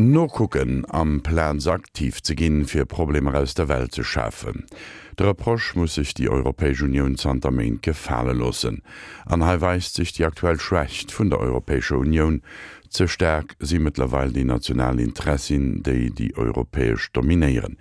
Nokucken, amplaz aktiv ze ginn, fir Problemer aus der Welt ze schafen. De Reproche muss sech déi Europäesch Unioun zanter Méint gefale loossen. An hei weist sech déi aktuell Schwächt vun der Europäescher Unioun, Ze staark si mëttlerweil déi national Interessin, déi déi europäesch dominéieren.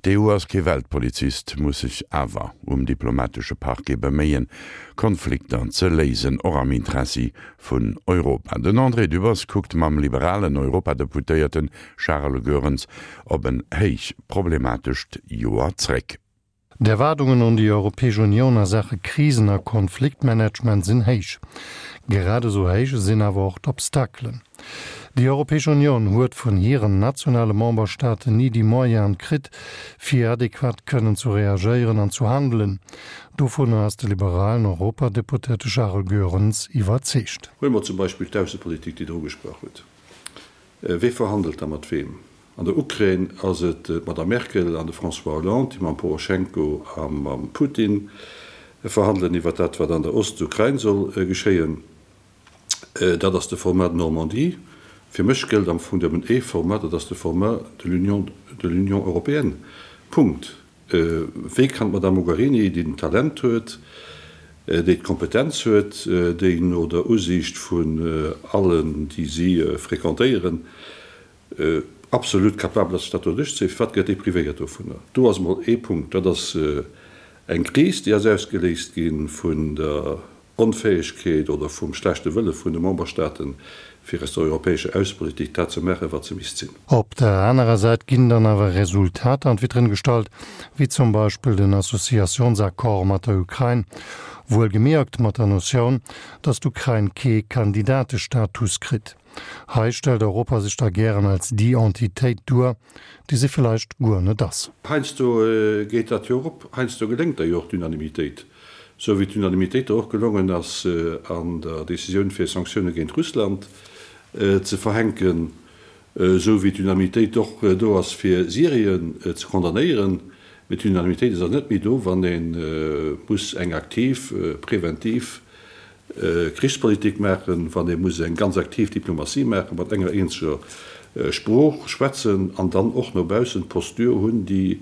D'EU ass kee Weltpolizist, muss sech awer um diplomatesche Parquet beméien, Konflikter ze léisen, och am Interessi vun Europa. Den André Dübbers kuckt mam liberalen Europadeputéierte Charles Goerens op en héich problematescht Joer zréck. D'Erwaardungen un déi Europäesch Unioun a Saache Krisen a Konfliktmanagement sinn héich. Grad esou héich sinn awer och d'Obstakelen. Déi Europäesch Unioun huet vun hiren nationale Memberstaaten ni déi Moyenen kritt, fir adequat kënnen zu reagéieren an zu handelen. Dovunner ass de liberalen Europadeputéierte Charles Goerens iwwerzeegt. Huele mer zum Beispill d'Aussepolitik, déi Der ugesprach hutt. Wee verhandelt da mat weem? An der Ukrain ass et d'Madame Merkel an de François Hollande, déi mam Poroschenko a mam Putin verhandelen iwwer dat, wat an der Ostukrain soll geschéien. Dat ass de Format Normandie. Fir mech gëllt am Fong nëmmen ee Format, dat ass de Format de l'Union, de l'Union européenne. Punkt. Wéi kann d'Madame Mogherini, déi den Talent huet, déi d'Kompetenz huet, déi no der Usiicht vun allen, déi si fréquentéieren, absolut capabel ass, sech dat do duerchzéien, firwat gëtt déi privéiert dovunner? Do ass emol ee Punkt. Dat ass eng Kris, déi ass ausgeléist gi vun der Onfäegkeet oder vum schlechte Wëlle vun de Memberstaaten, fir aus der europäescher Aussepolitik dat ze maachen, wat se misst sinn. Op der anerer Säit ginn dann awer Resultater an d'Vitrinn gestallt, wéi zum Beispill den Associationsaccord mat der Ukrain, wuelgemierkt mat der Notioun, datt d'Ukrain kee Kandidatestatus kritt. Hei stellt Europa sech da gären als déi Entitéit duer, déi se villeicht guer net ass. Heiansdo geet dat jo och op, heiansdo geléngt der jo och d'Unanimitéit, sou wéi d'Unanimitéit der och gelongen ass an der Décisioun fir Sanktioune géint Russland ze verhänken, sou wéi d'Unanimitéit och do ass fir Syrien ze condamnéieren. Mee d'Unanimitéit ass awer net méi do, wann ee muss eng aktiv, preventiv Krichspolitik maachen, wann ee muss eng ganz aktiv Diplomatie maachen, mat enger eenzeger Sprooch schwätzen an dann och no baussen d'Posture hunn, déi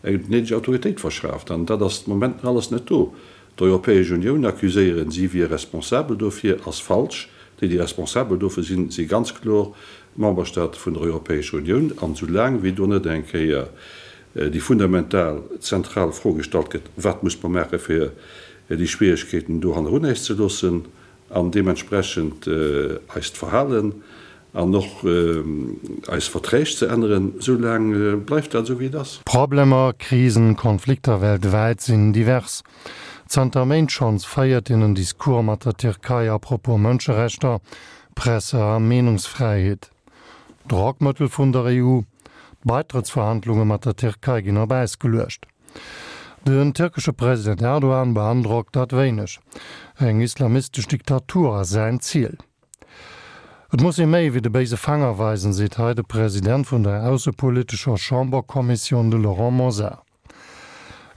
eng néideg Autoritéit verschaaft. An dat ass de Moment nach alles net do. D'Europäesch Unioun accuséieren, si wier responsabel dofir, ass falsch. Déi, déi responsabel dofir sinn, si ganz kloer d'Memberstaate vun der Europäescher Unioun. An esoulaang wéi do net eng Kéier déi fundamental, zentral Fro gestallt gëtt, Wat muss mer maache fir déi Schwieregkeeten do hannerun äis ze loossen an deementsprechend eist Verhalen an och eis Verträg ze änneren, esou laang bleift dat esou wéi et ass. Problemer, Krisen, Konflikter weltwäit sinn divers. Zanter Méint schonns féiert een en Discours mat der Tierkei à propos Mënscherechter, Presse a Meenungsfräiheet. Drockmëttel vun der EU, D'Baitrëttsverhandlunge mat der Tierkei ginn op Äis geluecht. Den tierkesche President Erdogan beandrockt dat wéineg. Eng islamistesch Diktatur ass säin Ziel. Et muss ee méi wéi de béise Fanger weisen, seet hei de President vun der aussepolitescher Chamberkommissioun, de Laurent Mosar.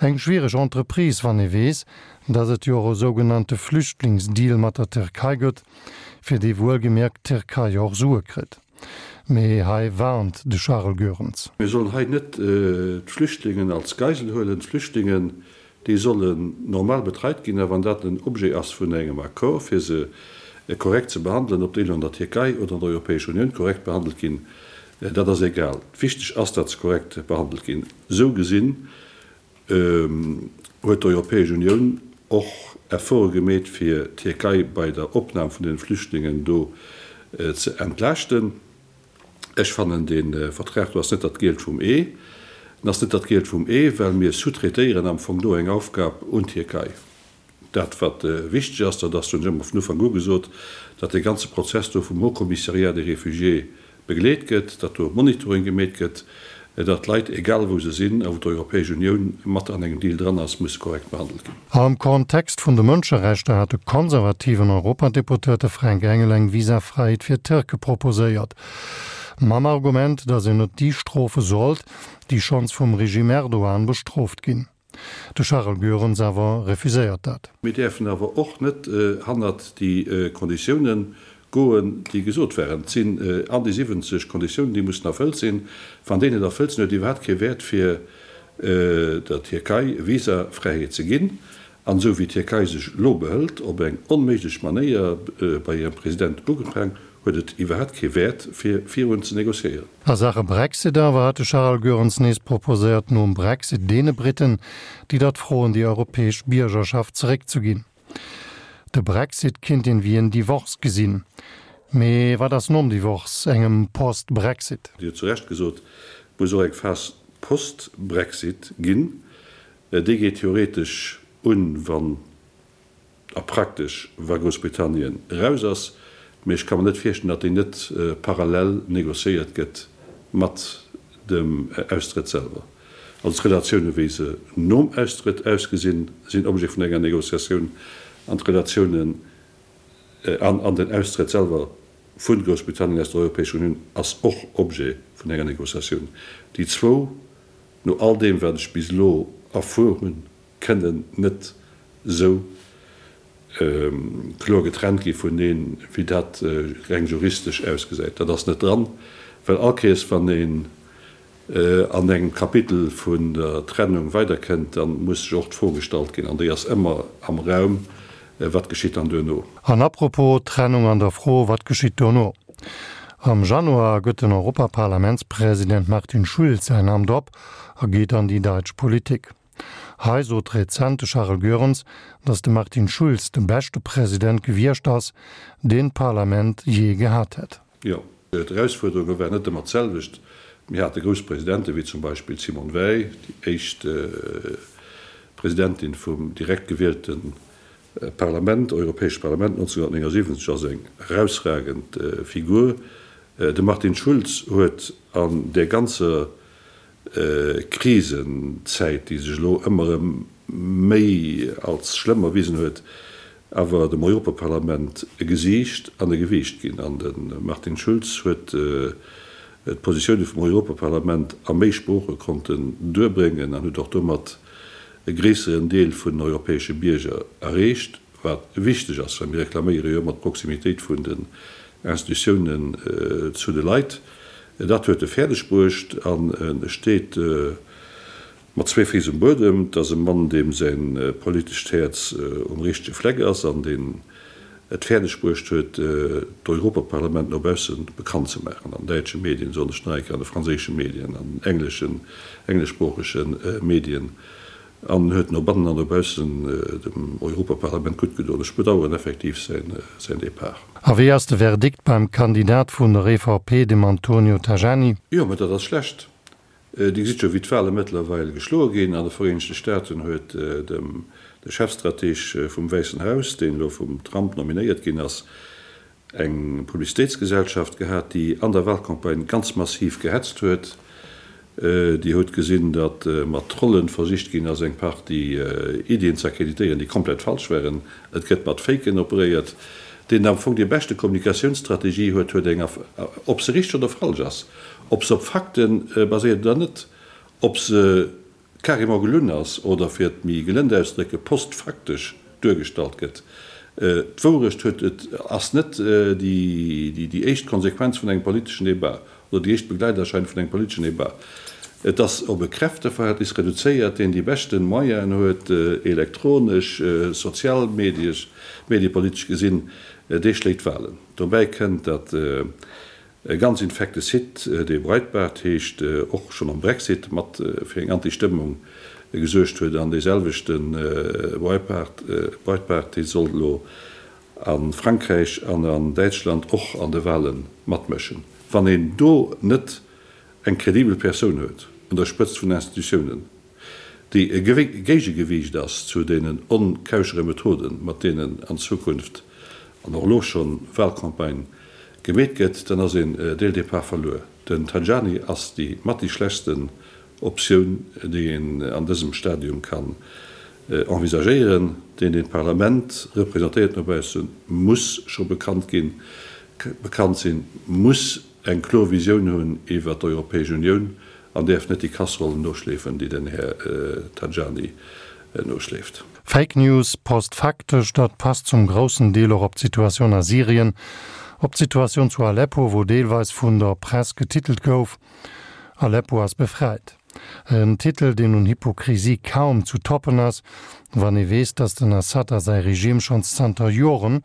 Eng schwiereg Entreprise, wann ee weess, datt et jo och e sougenannte Flüchtlingsdeal mat der Tierkei gëtt, fir dee wuelgemierkt d'Tierkei jo och Sue kritt. Mee hei warnt de Charles Goerens. Mir sollen hei net d'Flüchtlingen als Geisel huelen. D'Flüchtlingen, déi sollen normal betreit ginn. A wann dat den Objet ass vun engem Accord, fir se korrekt ze behandelen, ob déi elo an der Tierkei oder an der Europäescher Unioun korrekt behandelt ginn, dat ass egal. Wichteg ass, datt se korrekt behandelt ginn. Esou gesinn huet d'Europäesch Unioun och Efforte gemeet, fir d'Tierkei bei der Opnam vun den Flüchtlingen do ze entlaaschten. Ech fannen, dee Vertrag do ass net dat Gielt vum Ee. En ass net dat Gielt vum Ee, well mir sous-traitéieren am Fong do eng Aufgab un d'Tierkei. Dat, wat wichteg ass, dat ass, hunn ech ëmmer vun Ufank u gesot, datt dee ganze Prozess do vum Haut Commissariat des Réfugiés begleet gëtt, datt do e Monitoring gemeet gëtt, datt d'Leit, egal wou se sinn a wou d'Europäesch Unioun mat an engem Deal dran ass, musse korrekt behandelt ginn. Am Kontext vun de Mënscherechter hat de konservativen Europadeputéierte Fränk Engel eng Visafräiheet fir Tierke proposéiert. Mam Argument, datt een net déi strofe sollt, déi schonns vum Regime Erdogan bestrooft ginn. De Charel Goerens awer refuséiert dat. Mir däerfen awer och net hannert déi Konditiounen. Goen, déi gesot waren. Et sinn an déi 70 Konditiounen, déi mussen erfëllt sinn. Wann déi net erfëllt sinn, huet et iwwerhaapt kee Wäert, fir der Tierkei Visafräiheet ze ginn. An esou wéi d'Tierkei sech elo behëlt, op eng onméiglech Manéier, bei hirem President ugefaang, huet et iwwerhaapt kee Wäert, fir virun ze négociéieren. A Saache Brexit awer hat de Charel Goerens nees proposéiert, nom Brexit deene Briten, déi dat froen, déi europäesch Biergerschaft zeréckzeginn. De Brexit kinnt een wéi en Divorce gesinn. Mee wat ass nom Divorce, engem Post-Brexit? Dir hutt zu Recht gesot, et muss och eng Phas post-Brexit ginn. Déi geet theoretesch un, wann, a praktesch, wa Groussbritannien eraus ass. Mee ech ka mer net virstellen, datt déi net parallel négociéiert gëtt mat dem Austrëtt selwer. Also d'Relatioune wéi se nom Austrëtt ausgesinn, sinn Objet vun enger Négociatioun an d'Relatiounen an an den Austrëtt selwer vu Groussbritannien aus der Europäescher Unioun ass och Objet vun enger Négociatioun. Déi zwou, no all deem wat ech bis elo erfuer hunn, kënnen net esou kloer getrennt gi vuneen, wéi dat reng juristesch ausgesäit. Dat ass net dran, well all Kéiers wann een an engem Kapitel vun der Trennung weiderkënnt, da muss sech och d'Fro gestallt ginn, an déi ass ëmmer am Raum, Wat geschitt dann duerno? An apropos Trennung an der Fro, Wat geschitt duerno? Am Januar gëtt den Europaparlamentspresident Martin Schulz säin Amt op a geet an déi däitsch Politik. Hei sot rezent de Charel Goerens, datt de Martin Schulz de beschte President gewiescht ass, deen d'Parlament jee gehat hätt. Jo, d'Erausfuerderunge waren net ëmmer d'selwecht. Mir hate grouss Presidente wéi zum Beispill d'Simone Veil, déi éischt Presidentin vum direkt gewielte Parlament, Europäescht Parlament 1979, ass eng erausragend Figur. De Martin Schulz huet an där ganzer Krisenzäit, déi sech elo ëmmer erëm méi als schlëmm erwisen huet, awer dem Europaparlament e Gesiicht an e Gewiicht ginn. An de Martin Schulz huet d'Positioune vum Europaparlament a méi Sprooche konnten duerbréngen an huet och domat e gréisseren Deel vun den europäesche Bierger erreecht. Wat wichteg ass, well mir reklaméiere jo ëmmer d'Proximitéit vun den Institutiounen zu de Leit. Dat huet e fäerdeg bruecht an e steet mat zwee Féiss um Buedem. Et ass e Mann, deem säi politescht Häerz um richtege Fleck ass an deen et fäerdeg bruecht huet, d'Europaparlament no bausse bekannt ze maachen, an däitsche Medien, soen ech nach eng Kéier, an de franséische Medien, an den engleschen, engleschsproochege Medien. An huet no bannen an no baussen dem Europaparlament gutt gedoen. Ech bedauern effektiv säin Depart. A wéi ass de Verdikt beim Kandidat vun der EVP, dem Antonio Tajani? Jo, mä dat ass schlecht. Dir gesitt jo, wéi d'Wahle mëttlerweil geschloe ginn. An de Vereenegte Staaten huet dem de Chefstrateg vum Wäissen Haus, deen elo vum Trump nominéiert ginn ass, eng Publicitéitsgesellschaft gehat, déi an der Wahlcampagne ganz massiv gehetzt huet. Dir hutt gesinn, datt mat Trollen versicht ginn ass, eng Partie Iddien ze akkreditéieren, déi komplett falsch waren. Et gëtt mat Faken operéiert. Deen am Fong déi beschte Kommunikatiounsstrategie huet, huet eng, ob se richteg oder falsch ass, ob se op Fakte baséiert oder net, ob se carrément gelunn ass oder, fir et méi gelënd auszedrécken, postfaktesch duergestallt gëtt. D'Wourecht huet, et ass net déi éischt Konsequenz vun engem politeschen Débat oder déi éischt Begleiterscheinung vun engem politeschen Débat. Et ass op e Kräfteverhältnis reduzéiert, deen déi beschte Moyenen huet, elektronesch, sozialmediesch, mediepolitesch gesinn, dee schléit d'Wahlen. Dobäi kënnt, datt E ganz infekte Site, dee Breitbart heescht, och schonn am Brexit mat fir eng Anti-Stëmmung gesuergt huet. An dee selwechte Breitbart, Breitbart, dee soll elo a Frankräich an an Däitschland och an de Wahle matmëschen. Wann een do net eng kredibel Persoun huet un der Spëtzt vun Institutiounen, déi e Géigegewiicht ass zu deenen onkauschere Methoden, mat deenen an Zukunft an och elo schonn Wahlcampagne gemeet gëtt, dann ass een dès le départ verluer. Den Tajani ass déi mat déi schlechtsten Optioun, déi een an dësem Stadium kann envisagéieren. Deen, deen d'Parlament representéiert no baussen, muss scho bekannt ginn, bekannt sinn, muss eng kloer Visioun hunn iwwer d'Europäesch Unioun an däerf net déi Kasserollen noschleefen, déi den Här Tajani noschleeft. Fake News, postfaktesch, dat passt zum groussen Deel och op d'Situatioun a Syrien. Op d'Situatioun zu Aleppo, wou deelweis vun der Press getitelt gouf, Aleppo ass befreit. En Titel, deen un Hypokrisie kaum zu toppen ass, wann ee weess, datt den Assad a säi Regime schonns zanter Joren,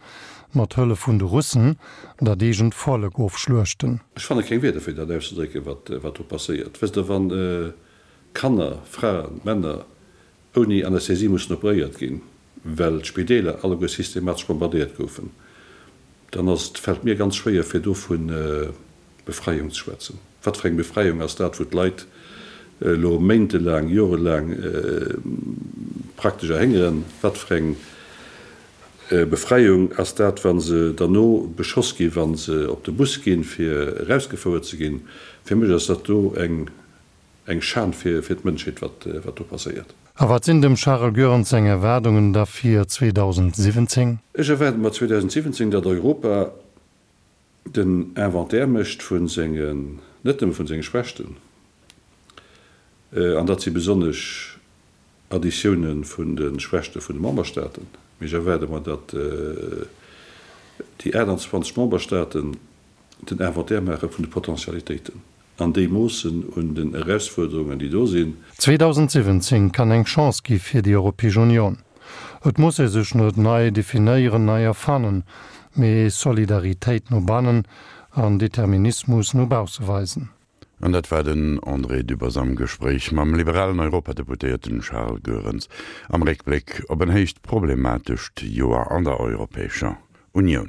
mat Hëllef vun de Russen, dat eegent Vollek ofschluechten. Ech fanne keng Wierder fir dat auszedrécken, wat do passéiert. Wësst Der, wann Kanner, Fraen, Männer ouni Anästhesie mussen operéiert ginn, well d'Spideeler alleguer systematesch bombardéiert goufen, dann ass et, fält mir ganz schwéier fir do vu Befreiung ze schwätzen. Wat fir eng Befreiung ass dat, wou d'Leit elo méintelaang, jorelaang praktesch erhéngeren? Wat fir eng Befreiung ass dat, wa se derno beschoss ginn, wa se op de Bus ginn, fir erausgefouert ze ginn? Fir mech ass dat do eng Eng Schan fir d'Mënschheet, wat do passéiert. A wat sinn dem Charel Goerens seng Erwaardungen da fir 2017? Ech erwaarde mer 2017, datt Europa den Inventaire mécht vu sengen, net nëmme vun senge Schwächten, an dat si besonnesch Additioune vun de Schwächte vun de Memberstaaten, mee ech erwaarde mer, datt déi 28 Memberstaaten den Inventaire maache vun de Potentialitéiten an déi moossen un den Erausfuerderungen, déi do sinn. 2017 kann eng Chance gi fir déi Europäesch Union. Et muss ee sech net nei definéieren, nei erfannen, mee Solidaritéit no bannen an Determinismus no bausse weisen. An dat war den André Dübbers am Gespréich mam liberalen Europadeputéierten Charles Goerens am Réckbléck op en héicht problematescht Joer an der Europäescher Unioun.